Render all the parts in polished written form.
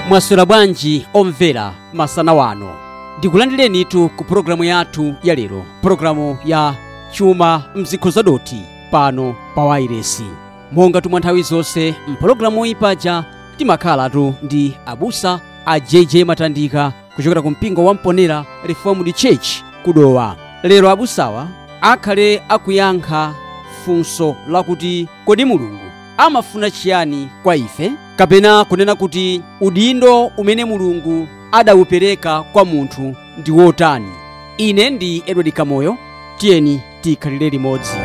Mwaswera bwanji omvera masana wano? Ndikulandirenitu ku pulogalamu yathu ya lero, pulogalamu ya Chuma Mzikho Zadoti pano pa wairesi. Monga tumwa nthawi zonse mpulogalamu iyi paja timakhalatu ndi abusa a JJ Matandika kuchokera ku mpingo wa Mponera Reformed Church kudowa. Lero abusawa akhale akuyankha funso lakuti kodi Mulungu amafuna chiyani kwa ife, kapena kunena kuti udindo umene Mulungu adawupereka kwa munthu ndi wotani. Ine ndi Edward Kamoyo, tiyeni tikhalire limodzi.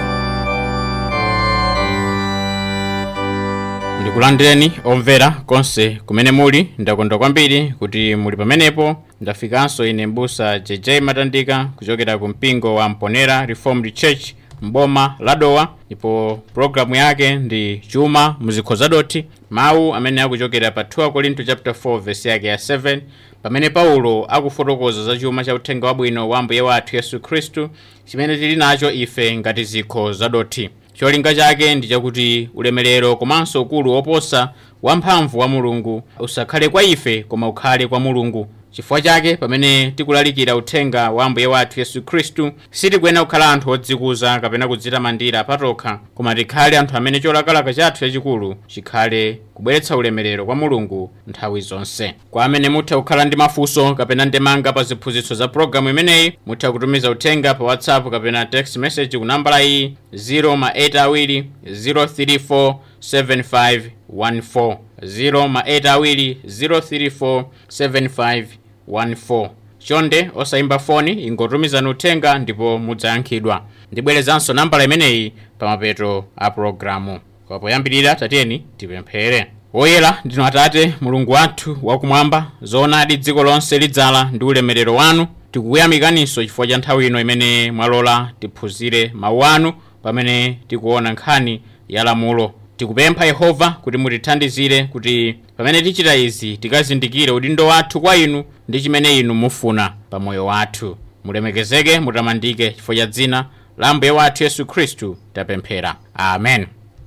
Ndikulandireni omvera konse kumene muli. Ndakondwa kwambiri kuti muli pamenepo. Ndafikanso ine mbusa JJ Matandika kuchokera ku mpingo wa Mponera Reformed Church mboma la Dowa, ndipo programu yake ndi Chuma Mzikho Zadoti, mawu amene akuchokera pa 2 Korinto chapter 4 verse yake ya 7, pamene Paulo akufotokoza za chuma cha uthenga wabwino wa Ambuye wathu Yesu Khristu chimene tili nacho ife ngati zikho zadoti. Cholinga chake ndi chakuti ulemerero komanso ukulu woposa wamphamvu wa Mulungu usakhale kwa ife koma ukhale kwa Mulungu. Chifukwa chake pamene tikulalikira uthenga wa Ambuye wathu Yesu Khristu sitikuyenera kukhala anthu odzikuza kapena kudzitamandira patokha, koma tikhale anthu amene cholakalaka chathu chachikulu chikhale kubweretsa ulemerero kwa Mulungu nthawi zonse. Kwa amene mutha kukhala ndi mafunso kapena ndemanga pa ziphunzitso za programu imeneyi, mutha kutumiza uthenga pa WhatsApp kapena text message ku nambala iyi 082 034 7514, 082 034 7514. Chonde osayimba foni, ingotumizani uthenga ndipo mudzayankhidwa. Ndibwerezanso nambala imeneyi pamapeto a programu. Kwa poyambirira tatiyeni tipemphere. Woyera ndinu Atate Mulungu wathu wakumwamba, zoonadi dziko lonse lidzala ndi ulemerero wanu. Tikukuyamikaninso chifukwa cha nthawi ino imene mwalola tiphunzire mawu anu pamene tikuona nkhani ya lamulo. Tikupempha Yehova kuti mutithandizire kuti pamene tichita izi tikazindikire udindo wathu kwa inu ndi chimene inu mufuna pa moyo wathu. Mulemekezeke, mutamandike chifukwa cha dzina la Ambuye wathu Yesu Khristu tapemphera, amen.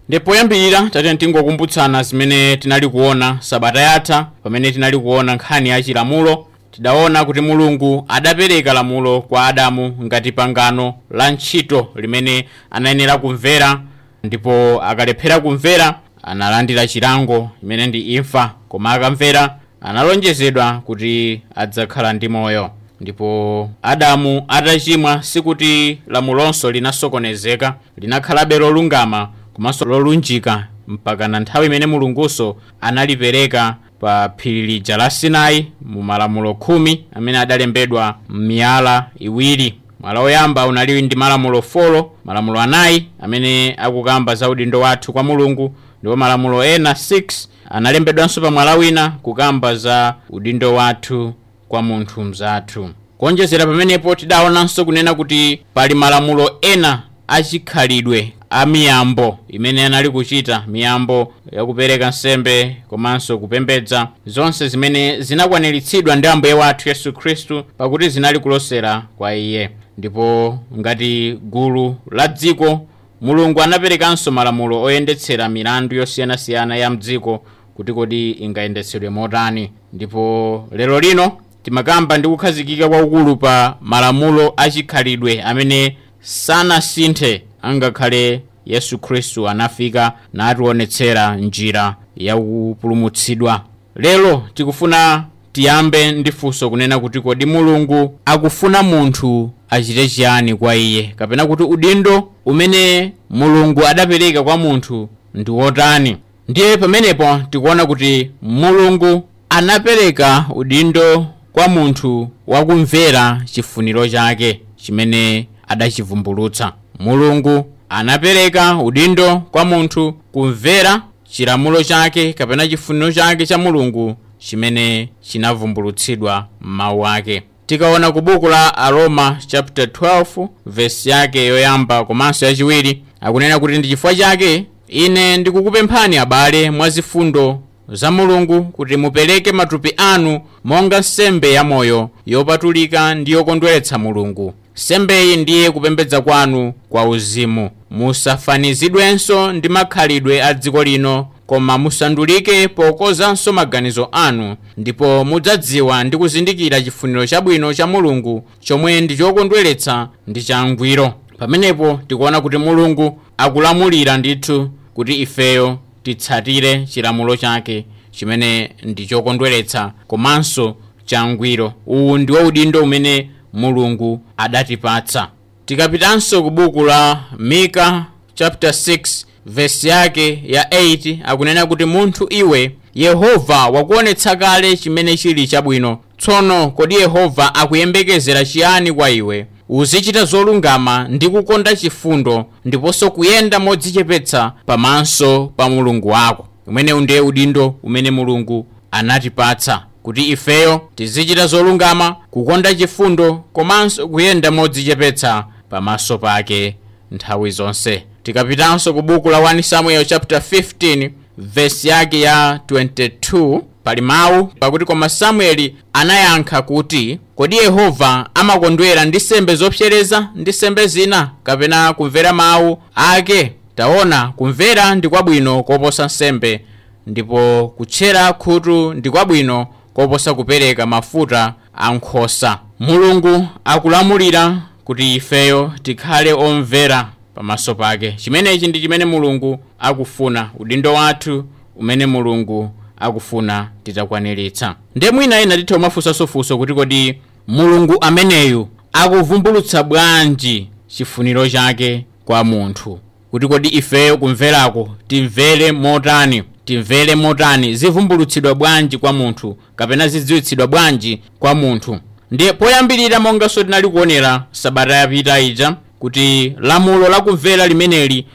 Ndipo poyambirira tatiyeni tingokumbutsana zimene tinali kuona sabata yatha pamene tinali kuona nkhani ya chilamulo. Tidaona kuti Mulungu adapereka lamulo kwa Adamu ngati pangano la ntchito limene anayenera kumvera, ndipo akalephera kumvera analandira chilango imene ndi imfa, koma akamvera analonjezedwa kuti adzakhala ndi moyo. Ndipo Adamu atachimwa sikuti lamulonso linasokonezeka, linakhalabe lolungama komanso lolunjika mpaka na nthawi imene Mulunguso analipereka pa phiri lija la Sinai mu malamulo 10 amene adalembedwa m'miyala iwiri. Mwala woyamba unali ndi malamulo 4, malamulo 4 amene akukamba za udindo wathu kwa Mulungu, ndipo malamulo ena 6 analembedwanso pa mwala wina kukamba za udindo wathu kwa munthu mzathu. Kuonjezera pamenepo tidaonanso kunena kuti pali malamulo ena achikhalidwe a miyambo imene anali kuchita, miyambo yakupereka nsembe komanso kupembedza, zonse zimene zinakwaniritsidwa ndi Ambuye wathu Yesu Khristu pakuti zinali kulosera kwa iye. Ndipo ngati gulu la dziko, Mulungu anaperekanso malamulo oyendetsera milandu yosiyanasiyana ya mdziko kuti kodi ingayendetsedwe motani. Ndipo lero lino timakamba ndi kukhazikika kwakukulu pa malamulo achikhalidwe amene sanasinthe angakhale Yesu Khristu anafika nationetsera njira ya kupulumutsidwa. Lero tikufuna tiyambe ndi funso kunena kuti kodi Mulungu akufuna munthu achite chiyani kwa iye, kapena kuti udindo umene Mulungu adapereka kwa munthu ndi wotani. Ndiye pamenepo tikuona kuti Mulungu anapereka udindo kwa munthu wakumvera chifuniro chake chimene adachivumbulutsa. Mulungu anapereka udindo kwa munthu kumvera chilamulo chake kapena chifuniro chake cha Mulungu chimene chinavumbulutsidwa m'mawu ake. Tikaona ku buku la Aroma chapter 12 verse yake yoyamba komanso yachiwiri, akunena kuti ndi chifukwa chake ine ndikukupemphani abale mwa zifundo za Mulungu kuti mupereke matupi anu monga nsembe ya moyo yopatulika ndi yokondweretsa Mulungu. Nsembeyi ndiye kupembedza kwanu kwa uzimu. Musafanizidwenso ndi makhalidwe a dziko lino, Koma musandulike pokozanso maganizo anu, ndipo mudzadziwa ndi kuzindikira chifuniro chabwino cha Mulungu, chomwe ndi chokondweretsa ndi changwiro. Pamenepo tikuona kuti Mulungu akulamulira ndithu kuti ifeyo titsatire chilamulo chake chimene ndi chokondweretsa komanso changwiro. Uwu ndiwo udindo umene Mulungu adatipatsa. Tikapitanso ku buku la Mika chapter 6 verse yake ya 8, akunena kuti munthu iwe, Yehova wakuonetsa kale chimene chili chabwino. Tsono kodi Yehova akuyembekezera chiyani kwa iwe? Uzichita zolungama ndi kukonda chifundo, ndiponso kuyenda modzichepetsa pamaso pa Mulungu wako. Umenewu ndiye udindo umene Mulungu anatipatsa, kuti ifeyo tizichita zolungama, kukonda chifundo komanso kuyenda modzichepetsa pamaso pake nthawi zonse. Tikapitanso ku buku la 1 Samuel chapter 15 verse yake ya 22, pali mawu pakuti koma Samueli anayankha kuti, kodi Yehova amakondwera ndi sembe zopsereza ndi sembe zina, kapena kumvera mawu ake? Taona, kumvera ndi kwabwino koposa nsembe, ndipo kutchera khutu ndi kwabwino koposa kupereka mafuta a nkhosa. Mulungu akulamulira kuti ifeyo tikhale omvera pamaso pake. Chimenechi ndi chimene Mulungu akufuna, udindo wathu umene Mulungu akufuna titakwaniritsa. Ndiye mwina ena titha kumafunsanso kuti kodi Mulungu ameneyu akuvumbulutsa bwanji chifuniro chake kwa munthu? Kuti kodi ifeyo kumverako timvere motani? Timvere motani? Zivumbulutsidwa bwanji kwa munthu, kapena zidziwitsidwa bwanji kwa munthu? Ndiye poyambirira, monganso tinali kuonera sabata yapita ija, kuti lamulo lakumvera limeneli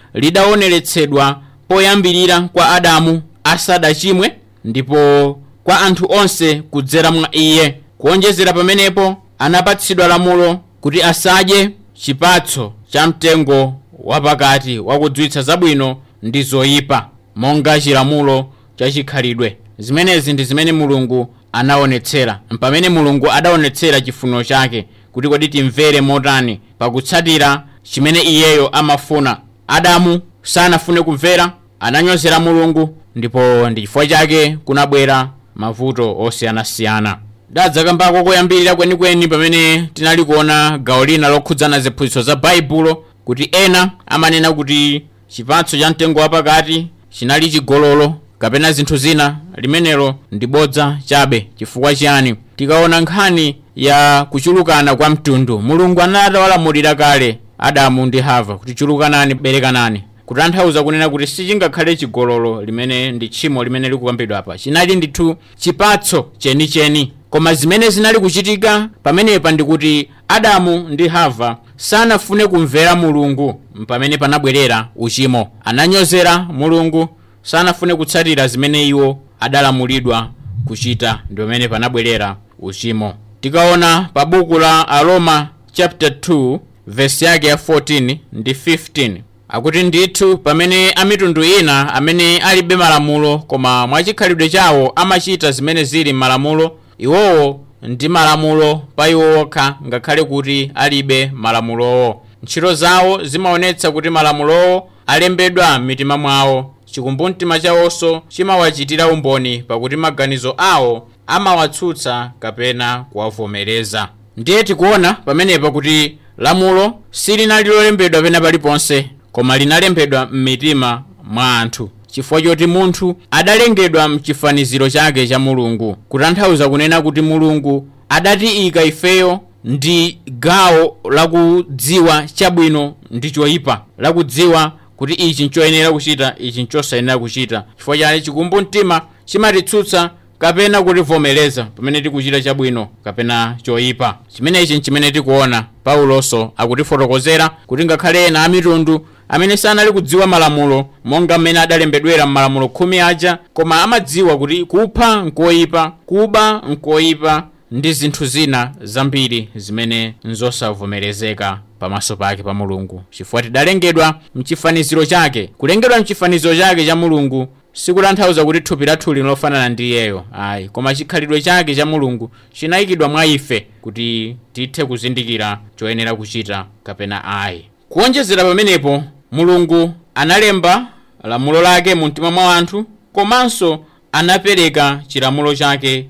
lidaoneretsedwa poyambirira kwa Adamu asadachimwe, ndipo kwa anthu onse kudzera mwa iye. Kuonjezera pamenepo, anapatsidwa lamulo kuti asadye chipatso cha mtengo wapakati wakudziwitsa zabwino ndi zoyipa, monga chilamulo chachikhalidwe. Zimenezi ndi zimene Mulungu anaonetsera, mpamene Mulungu adaonetsera chifuniro chake kuti kodi timvere motani pakutsatira chimene iyeyo amafuna. Adamu sanafune kumvera, ananyozera Mulungu, ndipo ndi chifukwa chake kunabwera mavuto osiyanasiyana. Dadzakambako koyambirira kwenikweni pamene tinali kuona gawo lina lokhudzana ziphunzitso za Baibulo, kuti ena amanena kuti chipatso cha mtengo wapakati chinali chigololo kapena zinthu zina. Limenelo ndi bodza chabe. Chifukwa chiyani? Tikaona nkhani ya kuchulukana kwa mtundu, Mulungu anatawalamulira kale Adamu ndi Hava kuti chulukanani, berekanani, kutanthauza kunena kuti sichingakhale chigololo limene ndi tchimo limene likukambidwa apa. Chinali ndithu chipatso chenicheni. Koma zimene zinali kuchitika pamenepa ndikuti Adamu ndi Hava sanafune kumvera Mulungu, pamene panabwerera uchimo. Ananyozera Mulungu, sanafune kutsatira zimene iwo adalamulidwa kuchita, ndi pamene panabwerera uchimo. Tikaona pa buku la Aroma chapter 2 verse yake ya 14 ndi 15, akuti ndithu pamene amitundu ina amene alibe malamulo koma mwachikhalidwe chawo amachita zimene zili m'malamulo, iwowo ndi malamulo pa iwo okha, ngakhale kuti alibe malamulowo. Ntchito zawo zimaonetsa kuti malamulowo alembedwa m'mitima mwawo. Chikumbumtima chawonso chimawachitira umboni, pakuti maganizo awo amawatsutsa kapena kuwavomereza. Ndiye tikuona pamenepa kuti lamulo silinali lolembedwa pena paliponse, koma linalembedwa m'mitima mwa anthu, chifukwa choti munthu adalengedwa mchifaniziro chake cha Mulungu. Kutanthauza kunena kuti Mulungu adatiyika ifeyo ndi gawo lakudziwa chabwino ndi choyipa, lakudziwa kuti ichi nchoyenera kuchita, ichi nchosayenera kuchita. Chifukwa chake chikumbumtima chimatitsutsa kapena kutivomereza pamene tikuchita chabwino kapena choyipa. Chimenechi nchimene tikuona Paulonso akutifotokozera kuti ngakhale ena amitundu amene sanali kudziwa malamulo monga mmene adalembedwera m'malamulo 10 aja, koma amadziwa kuti kupha nkoyipa, kuba nkoyipa ndi zinthu zina zambiri zimene nzosavomerezeka pamaso pake pa Mulungu, chifukwa tidalengedwa mchifaniziro chake. Kulengedwa mchifaniziro chake cha Mulungu sikutanthauza kuti thupi lathu lino lofanana ndi iyeyo, ayi, koma chikhalidwe chake cha Mulungu chinayikidwa mwa ife kuti tithe kuzindikira choyenera kuchita kapena ayi. Kuonjezera pamenepo, Mulungu analemba lamulo lake mu mtima mwa anthu. Komanso anapereka chilamulo chake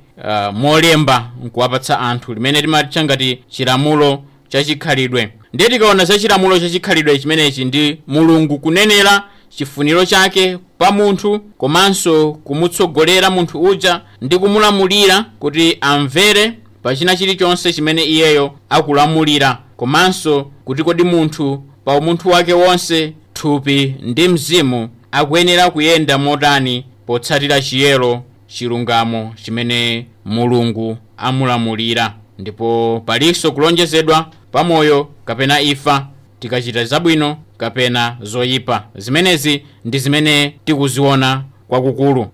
molemba nkuwapatsa anthu, limene timatcha ngati chilamulo chachikhalidwe. Ndiye tikaona za chilamulo chachikhalidwe chimenechi, ndi Mulungu kunenera chifuniro chake pa munthu, komanso kumutsogolera munthu uja ndi kumulamulira kuti amvere pa china chilichonse chimene iyeyo akulamulira, komanso kuti kodi munthu pa umunthu wake wonse, thupi ndi mzimu, akuyenera kuyenda motani potsatira chiyero, chilungamo chimene Mulungu amulamulira. Ndipo palinso kulonjezedwa pamoyo kapena imfa tikachita zabwino kapena zoyipa. Zimenezi ndi zimene tikuziona kwakukulu.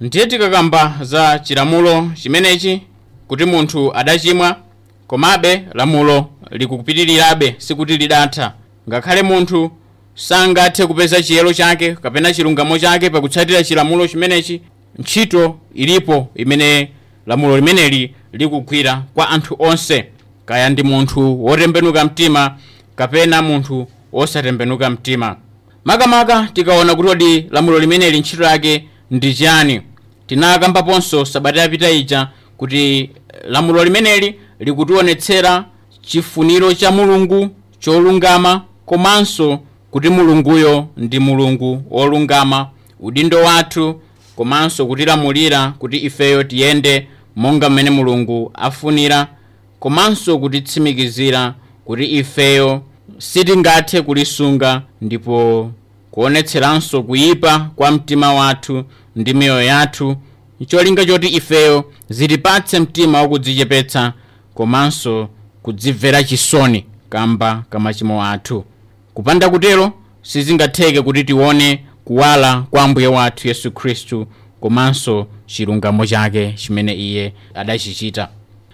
Ndiye tikakamba za chilamulo chimenechi kuti munthu adachimwa, komabe lamulo likupitirirabe, sikuti lidatha. Ngakhale munthu sangathe kupeza chiyero chake kapena chilungamo chake pakutsatira chilamulo chimenechi, ntchito ilipo imene lamulo limeneli likugwira kwa anthu onse, kaya ndi munthu wotembenuka mtima kapena munthu wosatembenuka mtima. Makamaka tikaona kuti kodi lamulo limeneli ntchito yake ndi chani, tinakambaponso sabata yapita ija kuti lamulo limeneli likutionetsera chifuniro cha Mulungu cholungama, komanso kuti Mulunguyo ndi Mulungu wolungama, udindo wathu komanso kutilamulira kuti ifeyo tiyende monga mmene Mulungu afunira, komanso kutitsimikizira kuti ifeyo sitingathe kulisunga, ndipo kuonetseranso kuyipa kwa mtima wathu ndi miyoyo yathu, cholinga choti ifeyo zitipatse mtima wakudzichepetsa komanso kudzimvera chisoni kamba kamachimo athu. Kupanda kutero sizingatheke kuti tione kuwala kwa Ambuye wathu Yesu Khristu komanso chilungamo chake chimene iye adachichita.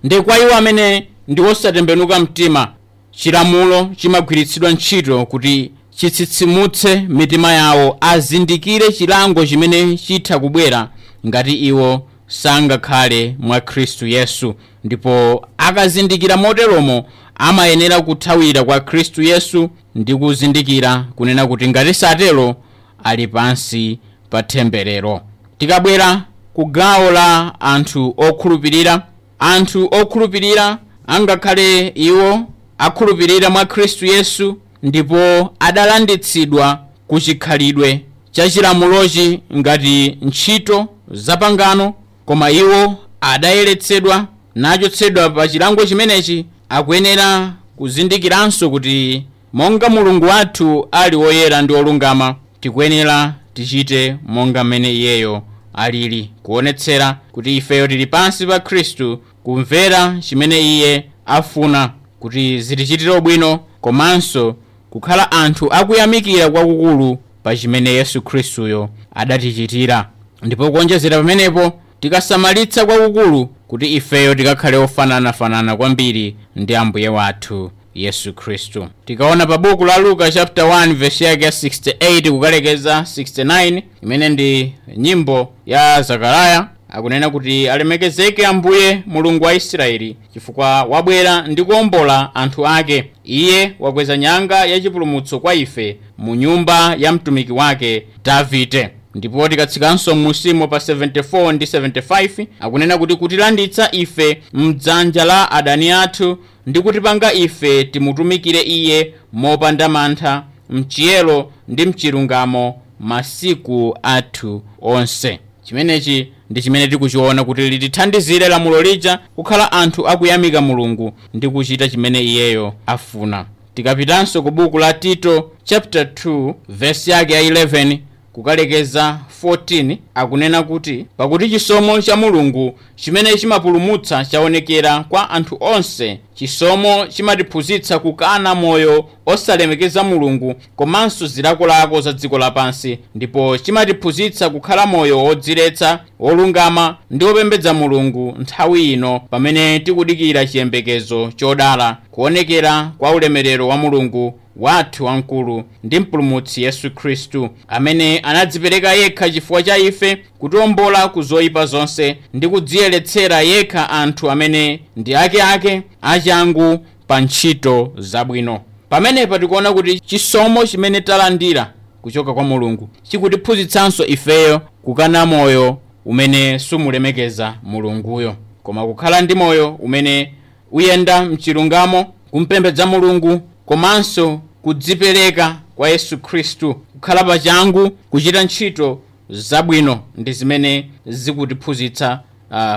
Ndi kwa iwo amene ndi osatembenuka mtima, chilamulo chimagwiritsidwa ntchito kuti chitsitsimutse mitima yawo, azindikire chilango chimene chitha kubwera ngati iwo sangakhale mwa Khristu Yesu. Ndipo akazindikira moteromo, amayenera kuthawira kwa Khristu Yesu ndi kuzindikira kunena kuti ngati satero ali pansi pa temberero. Tikabwera ku gawo la anthu okhulupirira, anthu okhulupirira angakhale iwo akhulupirira mwa Khristu Yesu ndipo adalanditsidwa ku chikhalidwe cha chilamulochi ngati ntchito zapangano, koma iwo adayeretsedwa nachotsedwa pa chilango chimenechi, akuyenera kuzindikiranso kuti monga Mulungu wathu ali woyera ndi wolungama, tikuyenera tichite monga mmene iyeyo alili, kuonetsera kuti ifeyo tili pansi pa Khristu, kumvera chimene iye afuna kuti zitichitire bwino, komanso kukhala anthu akuyamikira kwakukulu pa chimene Yesu Khristuyo adatichitira. Ndipo kuonjezera pamenepo, tikasamalitsa kwakukulu kuti ifeyo tikakhale ofananafanana kwambiri ndi Ambuye wathu Yesu Khristu. Tikaona pa buku la Luka chapter 1 verse yake ya 68 kukalekeza 69, imene ndi nyimbo ya Zakariya, akunena kuti alemekezeke Ambuye Mulungu wa Israeli, chifukwa wabwera ndi kuwombola anthu ake. Iye wakweza nyanga yachipulumutso kwa ife mu nyumba ya mtumiki wake Davide. Ndipo tikatsikanso musimo pa 74 ndi 75, akunena kuti kutilanditsa ife mdzanja la adani athu ndi kutipanga ife timutumikire iye mopanda mantha, mchiyero ndi mchilungamo masiku athu onse. Chimenechi ndi chimene tikuchiona kuti litithandizire lamulo lija kukhala anthu akuyamika Mulungu ndi kuchita chimene iyeyo afuna. Tikapitanso ku buku la Tito chapter 2 verse yake ya 11 kukalekeza 14, akunena kuti pakuti chisomo cha Mulungu chimene chimapulumutsa chaonekera kwa anthu onse. Chisomo chimatiphunzitsa kukana moyo osalemekeza Mulungu komanso zilakolako za dziko lapansi, ndipo chimatiphunzitsa kukhala moyo wodziletsa, wolungama ndi wopembedza Mulungu nthawi ino pamene tikudikira chiyembekezo chodala, kuonekera kwa ulemerero wa Mulungu wathu wamkulu ndi mpulumutsi Yesu Khristu, amene anadzipereka yekha chifukwa cha ife kutiwombola ku zoyipa zonse ndi kudziyeretsera yekha anthu amene ndi akeake achangu pa ntchito zabwino. Pamenepa tikuona kuti chisomo chimene talandira kuchoka kwa Mulungu chikutiphunzitsanso ifeyo kukana moyo umene sumulemekeza Mulunguyo, koma kukhala ndi moyo umene uyenda mchilungamo, kumpembedza Mulungu komanso kudzipereka kwa Yesu Khristu, kukhala pachangu kuchita ntchito zabwino, ndi zimene zikutiphunzitsa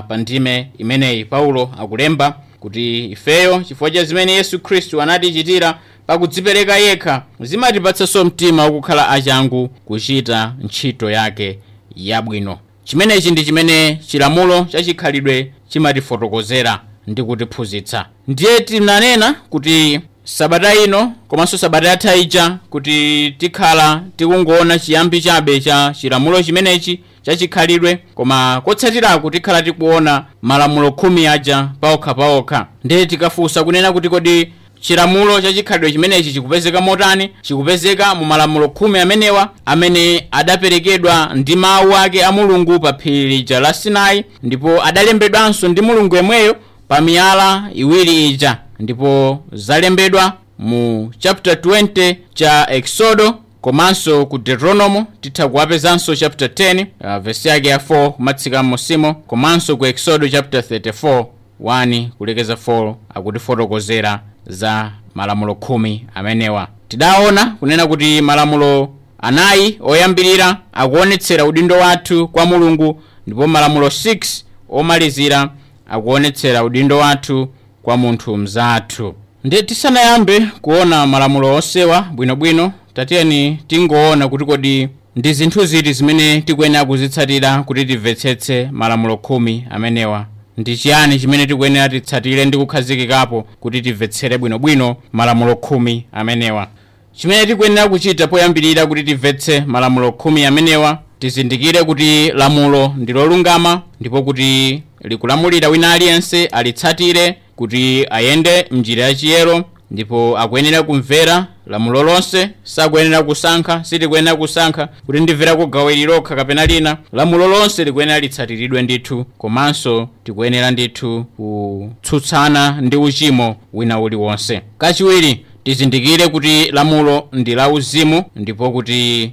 pa ndime imeneyi. Paulo akulemba kuti ifeyo chifukwa cha zimene Yesu Khristu anatichitira pakudzipereka yekha, zimatipatsanso mtima wokukhala achangu kuchita ntchito yake yabwino. Chimenechi ndi chimene chilamulo chachikhalidwe chimatifotokozera ndi kutiphunzitsa. Ndiye tinanena kuti sabata ino komanso sabata yatha ija kuti tikhala tikungoona chiyambi chabe cha chilamulo chimenechi chachikhalidwe, koma kotsatiraku tikhala tikuona malamulo 10 aja paokha. Ndiye tikafunsa kunena kuti kodi chilamulo chachikhalidwe chimenechi chikupezeka motani? Chikupezeka mu malamulo 10 amenewa amene adaperekedwa ndi mawu ake a Mulungu pa phiri lija la Sinai, ndipo adalembedwanso ndi Mulungu yemweyo pa miyala iwiri ija, ndipo zalembedwa mu chapter 20 cha Exodo komanso ku Deuteronomo titha kuwapezanso chapter 10 verse yake ya 4 kumatsika m'musimo, komanso ku Exodo chapter 34 1 kulekeza 4 akutifotokozera za malamulo 10 amenewa. Tidaona kunena kuti malamulo 4 oyambirira akuonetsera udindo wathu kwa Mulungu, ndipo malamulo 6 omalizira akuonetsera udindo wathu kwa munthu mzathu. Ndiye tisanayambe kuona malamulo onsewa bwinobwino, tatiyeni tingoona kuti kodi ndi zinthu ziti zimene tikuyenera kuzitsatira kuti timvetsetse malamulo 10 amenewa. Ndi chiyani chimene tikuyenera titsatire ndi kukhazikikapo kuti timvetsere bwinobwino malamulo 10 amenewa? Chimene tikuyenera kuchita poyambirira kuti timvetse malamulo 10 amenewa, tizindikire kuti lamulo ndi lolungama ndipo kuti likulamulira wina aliyense alitsatire kuti ayende mnjira yachiyero, ndipo akuyenera kumvera lamulo lonse. Sakuyenera kusankha, sitikuyenera kusankha kuti ndimvera kugawiri lokha kapena lina. Lamulo lonse likuyenera litsatiridwe ndithu, komanso tikuyenera ndithu kutsutsana ndi uchimo wina uliwonse. Kachiwiri, tizindikire kuti lamulo ndi la uzimu ndipo kuti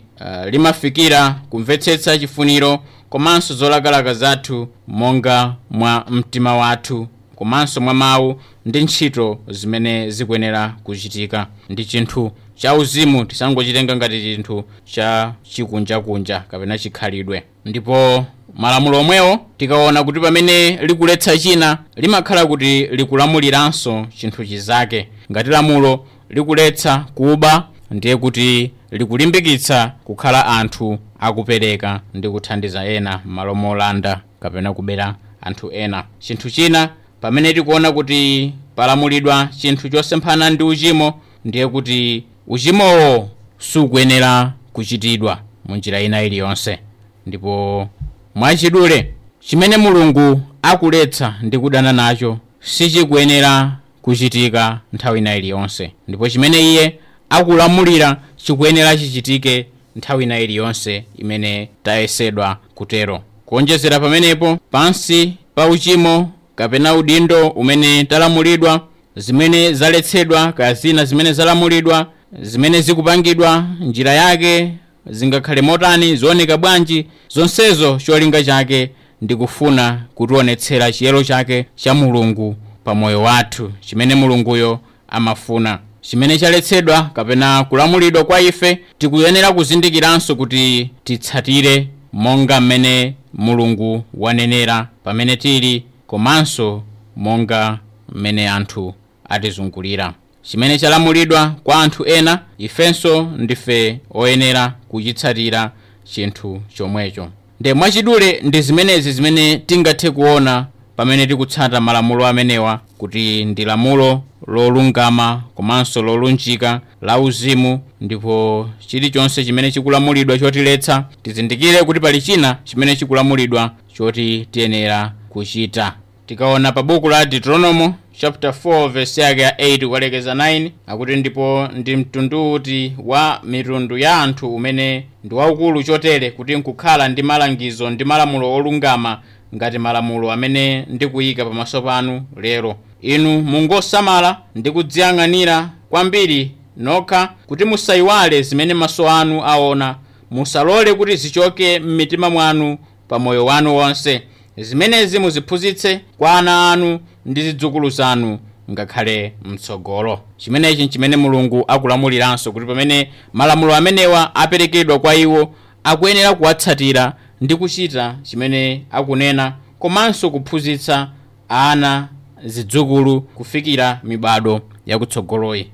limafikira kumvetsetsa chifuniro komanso zolakalaka zathu monga mwa mtima wathu komanso mwa mawu ndi ntchito zimene zikuyenera kuchitika. Ndi chinthu cha uzimu, tisangochitenga ngati chinthu cha chikunjakunja kapena chikhalidwe. Ndipo malamulo omwewo tikaona kuti pamene likuletsa china, limakhala kuti likulamuliranso chinthu chizake. Ngati lamulo likuletsa kuba, ndiye kuti likulimbikitsa kukhala anthu akupereka ndi kuthandiza ena m'malo molanda kapena kubera anthu ena. Chinthu china, pamene tikuona kuti palamulidwa chinthu chosemphana ndi uchimo, ndiye kuti uchimowo sukuyenera kuchitidwa mu njira ina iliyonse. Ndipo mwachidule, chimene Mulungu akuletsa ndi kudana nacho sichikuyenera kuchitika nthawi ina iliyonse, ndipo chimene iye akulamulira chikuyenera chichitike nthawi ina iliyonse imene tayesedwa kutero. Kuonjezera pamenepo, pansi pa uchimo kapena udindo umene talamulidwa, zimene zaletsedwa kaya zina zimene zalamulidwa, zimene zikupangidwa njira yake zingakhale motani, zioneka bwanji, zonsezo cholinga chake ndi kufuna kutionetsera chiyero chake cha Mulungu pa moyo wathu, chimene Mulunguyo amafuna. Chimene chaletsedwa kapena kulamulidwa kwa ife, tikuyenera kuzindikiranso kuti titsatire monga mmene Mulungu wanenera pamene tili, komanso monga mmene anthu atizungulira. Chimene chalamulidwa kwa anthu ena, ifenso ndife oyenera kuchitsatira chinthu chomwecho. Nde mwachidule ndi zimenezi zimene tingathe kuona pamene tikutsata malamulo amenewa, kuti ndi lamulo lolungama komanso lolunjika la uzimu, ndipo chilichonse chimene chikulamulidwa chotiletsa, tizindikire kuti pali china chimene chikulamulidwa choti tiyenera kuchita. Tikaona pa buku la Deuteronomo chapter 4 verse yake ya 8 kukalekeza 9, akuti ndipo ndi mtundu uti wa mitundu ya anthu umene ndi waukulu chotere kuti nkukhala ndi malangizo ndi malamulo olungama ngati malamulo amene ndikuyika pamaso panu lero? Inu mungosamala ndi kudziyang'anira kwambiri nokha kuti musayiwale zimene maso anu aona, Musalole kuti zichoke m'mitima mwanu pa moyo wanu wonse. Zimenezi muziphunzitse kwa ana anu ndi zidzukulu zanu ngakhale mtsogolo. Chimenechi nchimene Mulungu akulamuliranso, kuti pamene malamulo amenewa aperekedwa kwa iwo, akuyenera kuwatsatira ndi kuchita chimene akunena, komanso kuphunzitsa ana, zidzukulu, kufikira mibado yakutsogoloyi.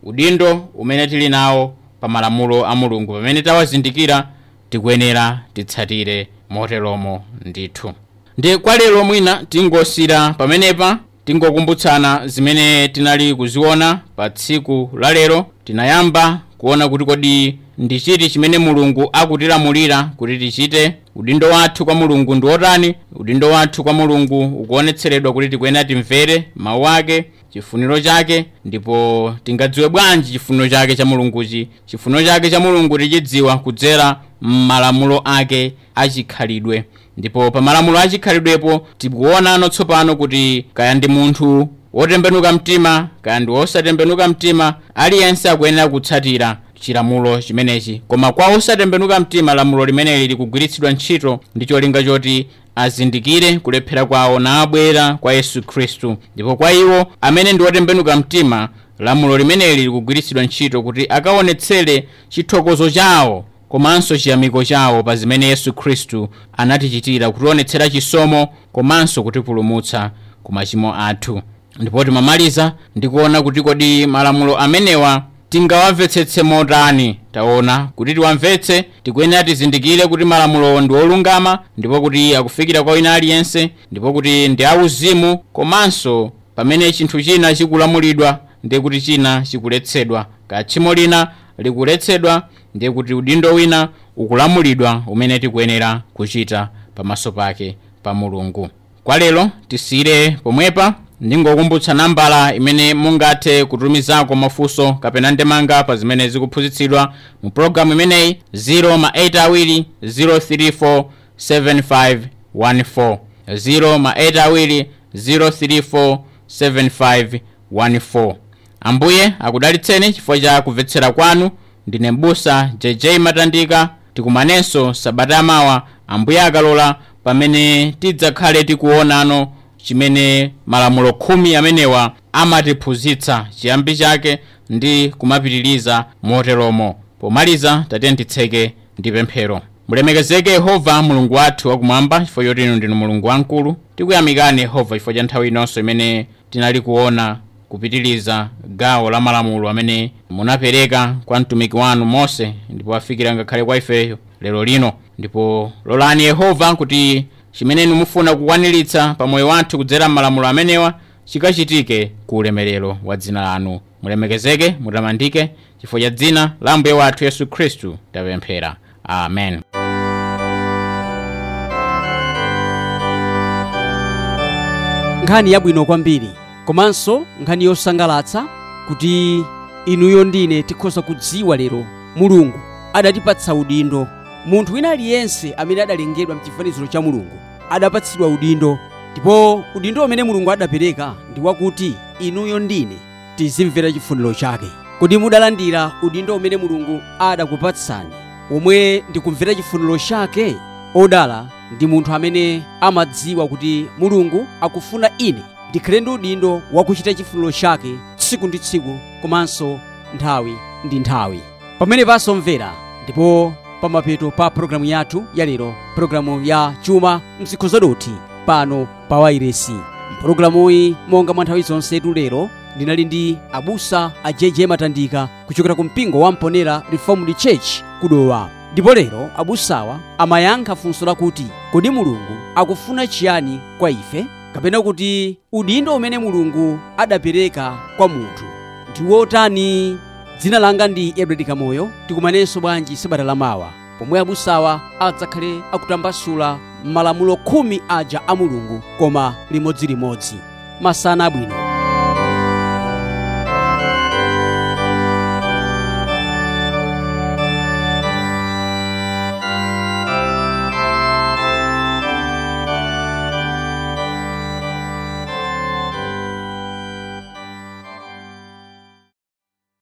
Udindo umene tili nawo pa malamulo a Mulungu, pamene tawazindikira, tikuyenera titsatire moteromo ndithu. Ndi kwa lero mwina tingosira pamenepa, tingokumbutsana zimene tinali kuziona pa tsiku la lero. Tinayamba kuona kuti kodi ndi chiti chimene Mulungu akutilamulira kuti tichite. Udindo wathu kwa Mulungu ndi wotani? Udindo wathu kwa Mulungu ukuonetseredwa kuti tikuyenera timvere mawu ake, chifuniro chake. Ndipo tingadziwe bwanji chifuniro chake cha Mulunguchi? Chifuniro chake cha Mulungu tichidziwa kudzera m'malamulo ake achikhalidwe. Ndipo pa malamulo achikhalidwepo tikuonano tsopano kuti kaya ndi munthu wotembenuka mtima, kaya ndi wosatembenuka mtima, aliyense akuyenera kutsatira chilamulo chimenechi. Koma kwa osatembenuka mtima, lamulo limeneli likugwiritsidwa ntchito ndi cholinga choti azindikire kulephera kwawo nabwera kwa Yesu Khristu. Ndipo kwa iwo amene ndi otembenuka mtima, lamulo limeneli likugwiritsidwa ntchito kuti akaonetsere chithokozo chawo komanso chiyamiko chawo pa zimene Yesu Khristu anatichitira, kutionetsera chisomo komanso kutipulumutsa ku machimo athu. Ndipo timamaliza ndikuona kuti kodi malamulo amenewa tingawamvetsetse motani. Taona kuti tiwamvetse tikuyenera tizindikire kuti malamulowo ndi olungama, ndipo kuti akufikira kwa wina aliyense, ndipo kuti ndi auzimu, komanso pamene chinthu china chikulamulidwa ndiye kuti china chikuletsedwa. Kaya tchimo lina likuletsedwa, ndiye kuti udindo wina ukulamulidwa umene tikuyenera kuchita pamaso pake pa Mulungu. Kwa lero tisiyire pomwepa. Ndingokumbutsa nambala imene mungathe kutumizako mafunso kapena ndemanga pa zimene zikuphunzitsidwa mu pologalamu imeneyi: 0 ma 8 awiri 034 7514, 0 ma 8 awiri 034 7514. Ambuye akudalitseni chifukwa cha kumvetsera kwanu. Ndine m'busa JJ Matandika. Tikumanenso sabata yamawa, Ambuye akalola, pamene tidzakhale tikuonano chimene malamulo 10 amenewa amatiphunzitsa, chiyambi chake ndi kumapitiriza moteromo. Pomaliza, tatiyeni titseke ndi pemphero. Mulemekezeke Yehova Mulungu wathu wakumwamba, chifukwa choti inu ndinu Mulungu wamkulu. Tikuyamikani Yehova chifukwa cha nthawi inonso imene tinali kuona kupitiriza gawo la malamulo amene munapereka kwa mtumiki wanu Mose, ndipo afikira ngakhale kwa ifeyo lero lino. Ndipo lolani Yehova kuti chimene inu mufuna kukwaniritsa pa moyo wathu kudzera m'malamulo amenewa chikachitike ku ulemerero wa dzina lanu. Mulemekezeke, mutamandike, chifukwa cha dzina la Ambuye wathu Yesu Khristu tapemphera, amen. Nkhani yabwino kwambiri komanso nkhani yosangalatsa kuti inuyo ndine tikhoza kudziwa lero Mulungu adatipatsa udindo. Munthu wina aliyense amene adalengedwa mchifaniziro cha Mulungu adapatsidwa udindo, ndipo udindo umene Mulungu adapereka ndi wakuti inuyo ndine tizimvera chifuniro chake. Kodi mudalandira udindo umene Mulungu adakupatsani, womwe ndikumvera chifuniro chake? Odala ndi munthu amene amadziwa kuti Mulungu akufuna ine ndikhale ndi udindo wakuchita chifuniro chake tsiku ndi tsiku komanso nthawi ndi nthawi. Pamene pasomvera ndipo pamapeto pa pologalamu yathu yalero, pologalamu ya Chuma Mzikho Zadothi pano pa wairesi. Mpologalamuyi, monga mwa nthawi zonse, lero ndinali ndi abusa a JJ Matandika kuchokera ku mpingo wa Mponera Reformed Church kudowa. Ndipo lero abusawa amayankha funso lakuti kodi Mulungu akufuna chiyani kwa ife, kapena kuti udindo umene Mulungu adapereka kwa munthu ndi wotani? Dzina langa ndi Edward Kamoyo. Tikumanenso bwanji sabata lamawa pomwe abusawa adzakhale akutambasula malamulo 10 aja a Mulungu, koma limodzilimodzi. Masana abwino.